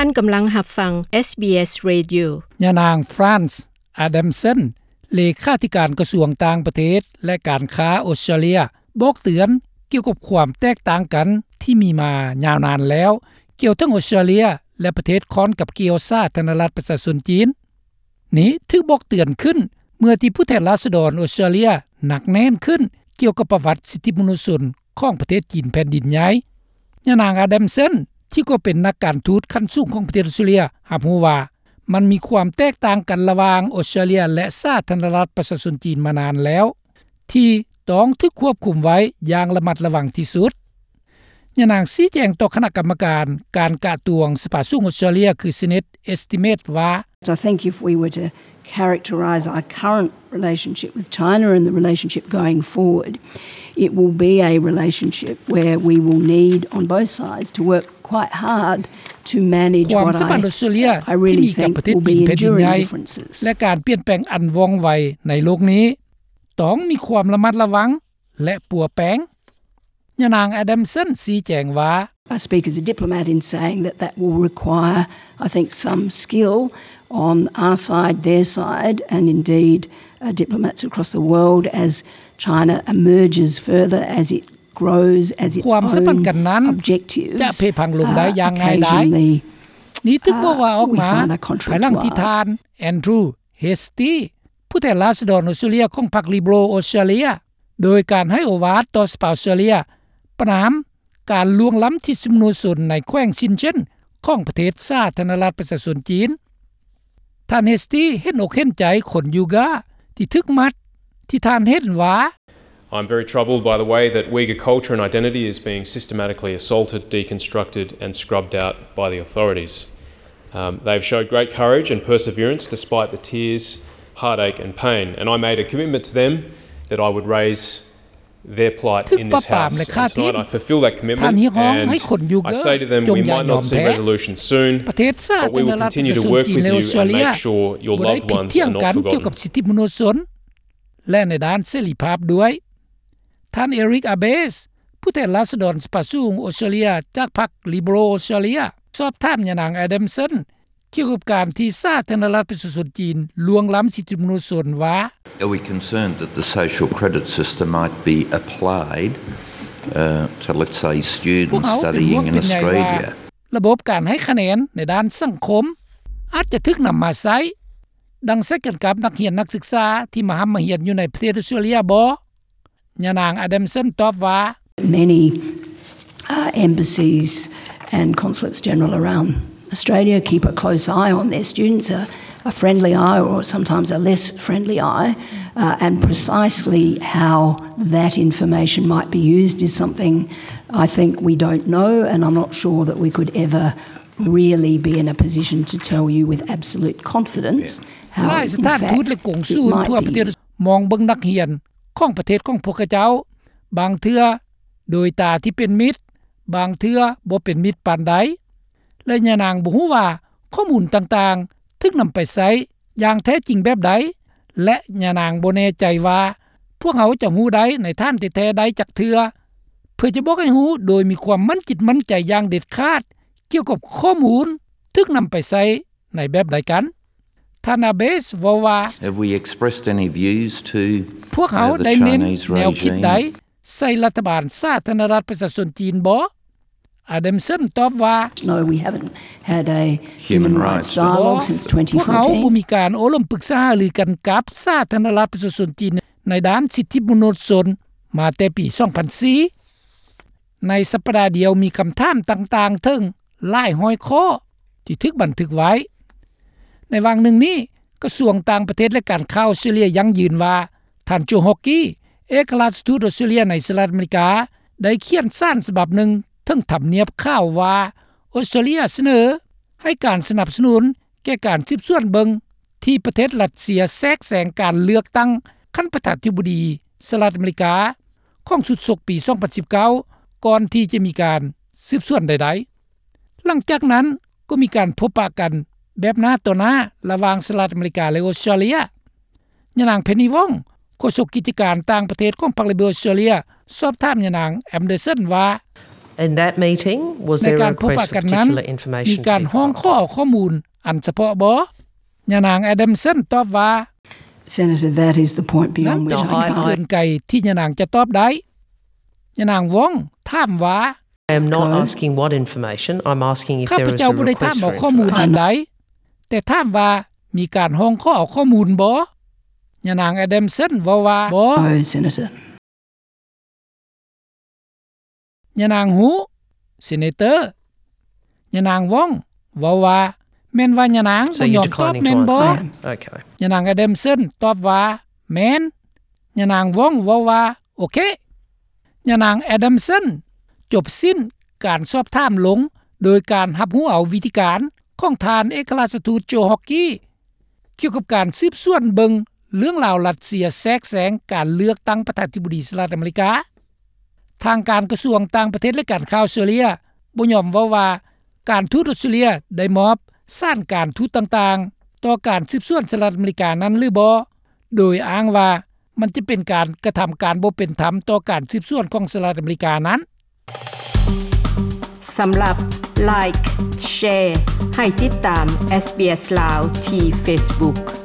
ທ່ານກຳລັງຮັບຟັງ ເອສບີເອສ Radio. ຍານາງ Frances Adamson ເລຂາທິການກະຊວງຕ່າງປະເທດ ແລະ ການຄ້າອົດສະຕຣາເລຍ ບອກເຕືອນກ່ຽວກັບຄວາມແຕກຕ່າງກັນທີ່ມີມາຍາວນານແລ້ວ ກ່ຽວທັງອົດສະຕຣາເລຍ ແລະ ປະເທດຂ້ອນກັບກ່ຽວສາທາລະນະລັດປະຊາຊົນຈີນ. ນີ້ຖືກບອກເຕືອນຂຶ້ນເມື່ອທີ່ຜູ້ແທນລາຊະດອນອົດສະຕຣາເລຍໜັກແໜ້ນຂຶ້ນກ່ຽວກັບປະຫວັດສິດທິມະນຸດຊົນຂອງປະເທດຈີນແຜ່ນດິນໃຫຍ່. ຍານາງ Adamson ທີ່ກໍເປັນນັກການທູດຂັ້ນສູງຂອງປະເທດອົດສະຕຣາເລຍ ຮັບຮູ້ວ່າ ມັນມີຄວາມແຕກຕ່າງກັນລະຫວ່າງອົດສະຕຣາເລຍ ແລະ ສາທາລະນະລັດປະຊາຊົນຈີນມານານແລ້ວ ທີ່ຕ້ອງຖືກຄວບຄຸມໄວ້ຢ່າງລະມັດລະວັງທີ່ສຸດ. ຍານາງຊີ້ແຈງຕໍ່ຄະນະກຳມະການການກະຕວງສະພາສູງອົດສະຕຣາເລຍ ຄື Senate Estimate ວ່າ I think if we were to characterize our current relationship with China and the relationship going forward, it will be a relationship where we will need on both sides to work quite hard to manage ຄວາມສຳພັນອົດສະຕຣາເລຍທີ່ມີກັບປະເທດຈີນແຜ່ນດິນໃຫຍ່ ແລະ ການປ່ຽນແປງອັນວ່ອງໄວໃນໂລກນີ້ ຕ້ອງມີຄວາມລະມັດລະວັງ ແລະ ປົວແປງ. ຍານາງ Adamson ຊີ້ແຈງວ່າ I speak as a diplomat in saying that that will require, I think, some skill on our side, their side, and indeed, uh, diplomats across the world as China emerges further, as it grows, as its own objectives, uh, occasionally, uh, ຄວາມສຳພັນກັນນັ້ນຈະເພພັງລົງໄດ້ຢ່າງງ່າຍດາຍ. ນີ້ຖືກບອກວ່າອອກມາພາຍຫຼັງທີ່ທ່ານ Andrew Hastie ຜູ້ແທນລາຊະດອນອົດສະຕຣາເລຍຂອງພັກ Liberal ອົດສະຕຣາເລຍ ໂດຍການໃຫ້ໂອວາດຕໍ່ສະພາອົດສະຕຣາເລຍ ປະນາມການລ່ວງລ້ຳສິດທິມະນຸດຊົນໃນແຂວງຊິນເຈັນຂອງປະເທດສາທາລະນະລັດປະຊາຊົນຈີນ. ທ່ານ Hastie ເຫັນອົກເຫັນໃຈຄົນຢູກາທີ່ຖືກມັດ ທີ່ທ່ານເຫັນວ່າ I'm very troubled by the way that Uyghur culture and identity is being systematically assaulted, deconstructed and scrubbed out by the authorities. Um, they've showed great courage and perseverance despite the tears, heartache and pain, and I made a commitment to them that I would raise their plight in this House. And tonight I fulfil that commitment and I say to them, we might not see resolution soon, but we will continue to work with you and make sure your loved ones are not forgotten. ແລະ ໃນດ້ານເສລີພາບດ້ວຍ. ທ່ານ Eric Abetz ຜູ້ແທນລາຊະດອນສະພາສູງອົດສະຕຣາເລຍຈາກພັກ Liberal ອົດສະຕຣາເລຍ ສອບຖາມຍານາງ Adamson ກ່ຽວກັບການທີ່ສາທາລະນະລັດປະຊາຊົນຈີນລ່ວງລ້ຳສິດທິມະນຸດຊົນວ່າ Are we concerned that the social credit system might be applied, uh, to, let's say, students studying in Australia? ລະບົບການໃຫ້ຄະແນນໃນດ້ານສັງຄົມອາດຈະຖືກນຳມາໃຊ້ ດັ່ງໃຊ້ກັນກັບນັກຮຽນນັກສຶກສາທີ່ມາຮ່ຳມາຮຽນຢູ່ໃນປະເທດອົດສະຕຣາເລຍບໍ? ຍານາງ Adamson ຕອບວ່າ Many, uh, embassies and consulates general around Australia keep a close eye on their students, a, a friendly eye or sometimes a less friendly eye, uh, and precisely how that information might be used is something I think we don't know, and I'm not sure that we could ever really be in a position to tell you with absolute confidence how, in fact, it might be used. ຫຼາຍສະຖານທູດ ແລະ ກົງສູນທົ່ວປະເທດ ມອງເບິ່ງນັກຮຽນຂອງປະເທດຂອງພວກເຂົາເຈົ້າ ບາງເທື່ອໂດຍຕາທີ່ເປັນມິດ, ບາງເທື່ອບໍ່ເປັນມິດປານໃດ ແລະ ຍານາງບໍ່ຮູ້ວ່າຂໍ້ມູນຕ່າງໆຖືກນຳໄປໃຊ້ຢ່າງແທ້ຈິງແບບໃດ ແລະ ຍານາງບໍ່ແນ່ໃຈວ່າພວກເຮົາຈະຮູ້ໄດ້ໃນຖານແທ້ໆໄດ້ຈັກເທື່ອ ເພື່ອຈະບອກໃຫ້ຮູ້ໂດຍມີຄວາມໝັ້ນຈິດໝັ້ນໃຈຢ່າງເດັດຂາດ ກ່ຽວກັບຂໍ້ມູນຖືກນຳໄປໃຊ້ໃນແບບໃດກັນ. ທ່ານ Abetz ເວົ້າວ່າ Have we expressed any views to, uh, the Chinese regime? ພວກເຮົາໄດ້ເນັ້ນແນວຄິດໃດໃສ່ລັດຖະບານສາທາລະນະລັດປະຊາຊົນຈີນບໍ? Adamson ຕອບວ່າ No, we haven't had a human rights dialogue since twenty fourteen. ພວກເຮົາບໍ່ມີການໂອ້ລົມປຶກສາຫາລືກັນກັບສາທາລະນະລັດປະຊາຊົນຈີນໃນດ້ານສິດທິມະນຸດຊົນມາແຕ່ປີສອງພັນສີ່. ໃນສັບປະດາດຽວມີຄຳຖາມຕ່າງໆເຖິງຫຼາຍຮ້ອຍຂໍ້ທີ່ຖືກບັນທຶກໄວ້. ໃນຫວ່າງໜຶ່ງນີ້ ກະຊວງຕ່າງປະເທດ ແລະ ການຄ້າອົດສະຕຣາເລຍຢັ້ງຢືນວ່າ ທ່ານ Joe Hockey ເອກະລາຊະທູດອົດສະຕຣາເລຍໃນສະຫະລັດອາເມລິກາ ໄດ້ຂຽນສານສະບັບໜຶ່ງເຖິງທຳນຽບຂາວວ່າ ອົດສະຕຣາເລຍສະເໜີໃຫ້ການສະໜັບສະໜູນແກ່ການສືບສວນເບິ່ງທີ່ປະເທດຣັດເຊຍແຊກແຊງການເລືອກຕັ້ງຂັ້ນປະທານາທິບໍດີສະຫະລັດອາເມລິກາ ຂອງຊຸດສົກປີສອງພັນສິບເກົ້າ ກ່ອນທີ່ຈະມີການສືບສວນໃດໆ. ຫຼັງຈາກນັ້ນກໍມີການພົບປະກັນແບບໜ້າຕໍ່ໜ້າລະຫວ່າງສະຫະລັດອາເມລິກາ ແລະ ອົດສະຕຣາເລຍ. ຍານາງ Penny Wong ໂຄສົກກິດຈະການຕ່າງປະເທດຂອງພັກ Liberal ອົດສະຕຣາເລຍ ສອບຖາມຍານາງ Anderson ວ່າ And that meeting, was there a request for particular information to be provided? ໃນການພົບປະກັນນັ້ນ ມີການຮ້ອງຂໍເອົາຂໍ້ມູນອັນສະເພາະບໍ? ຍານາງ Adamson ຕອບວ່າ Senator, that is the point beyond which I can't. ນັ້ນເປັນຈຸດເກີນໄກທີ່ຍານາງຈະຕອບໄດ້. ຍານາງ Wong ຖາມວ່າ I am not asking what information, I'm asking if there is a request for information. ຂ້າພະເຈົ້າບໍ່ໄດ້ຖາມເອົາຂໍ້ມູນອັນໃດ, ແຕ່ຖາມວ່າມີການຮ້ອງຂໍເອົາຂໍ້ມູນບໍ? ຍານາງ Adamson ເວົ້າວ່າ No, Senator. ຍານາງ Hu, Senator. ຍານາງ Wong ເວົ້າວ່າ ແມ່ນວ່າຍານາງ So you declining to answer? ບໍ່ຍອມຕອບແມ່ນບໍ່? Okay. ຍານາງ Adamson ຕອບວ່າ ແມ່ນ. ຍານາງ Wong ເວົ້າວ່າ ໂອເຄ. ຍານາງ Adamson ຈົບສິ້ນການສອບຖາມລົງໂດຍການຮັບຮູ້ເອົາວິທີການຂອງທ່ານເອກະລາຊະທູດ Joe Hockey ກ່ຽວກັບການສືບສວນເບິ່ງເລື່ອງລາວຣັດເຊຍແຊກແຊງການເລືອກຕັ້ງປະທານາທິບໍດີສະຫະລັດອາເມລິກາ. ທາງການກະຊວງຕ່າງປະເທດ ແລະ ການຂ່າວເຊີເລຍບໍ່ຍອມເວົ້າວ່າ ການທູດອົດສະເຕຣເລຍໄດ້ມອບສານການທູດຕ່າງໆຕໍ່ການສືບສວນສະຫະລັດອາເມລິການັ້ນຫຼືບໍ່, ໂດຍອ້າງວ່າມັນຈະເປັນການກະທຳການບໍ່ເປັນທຳຕໍ່ການສືບສວນຂອງສະຫະລັດອາເມລິການັ້ນ. ສຳລັບ Like, Share ໃຫ້ຕິດຕາມ SBS ລາວ ທີ່ Facebook.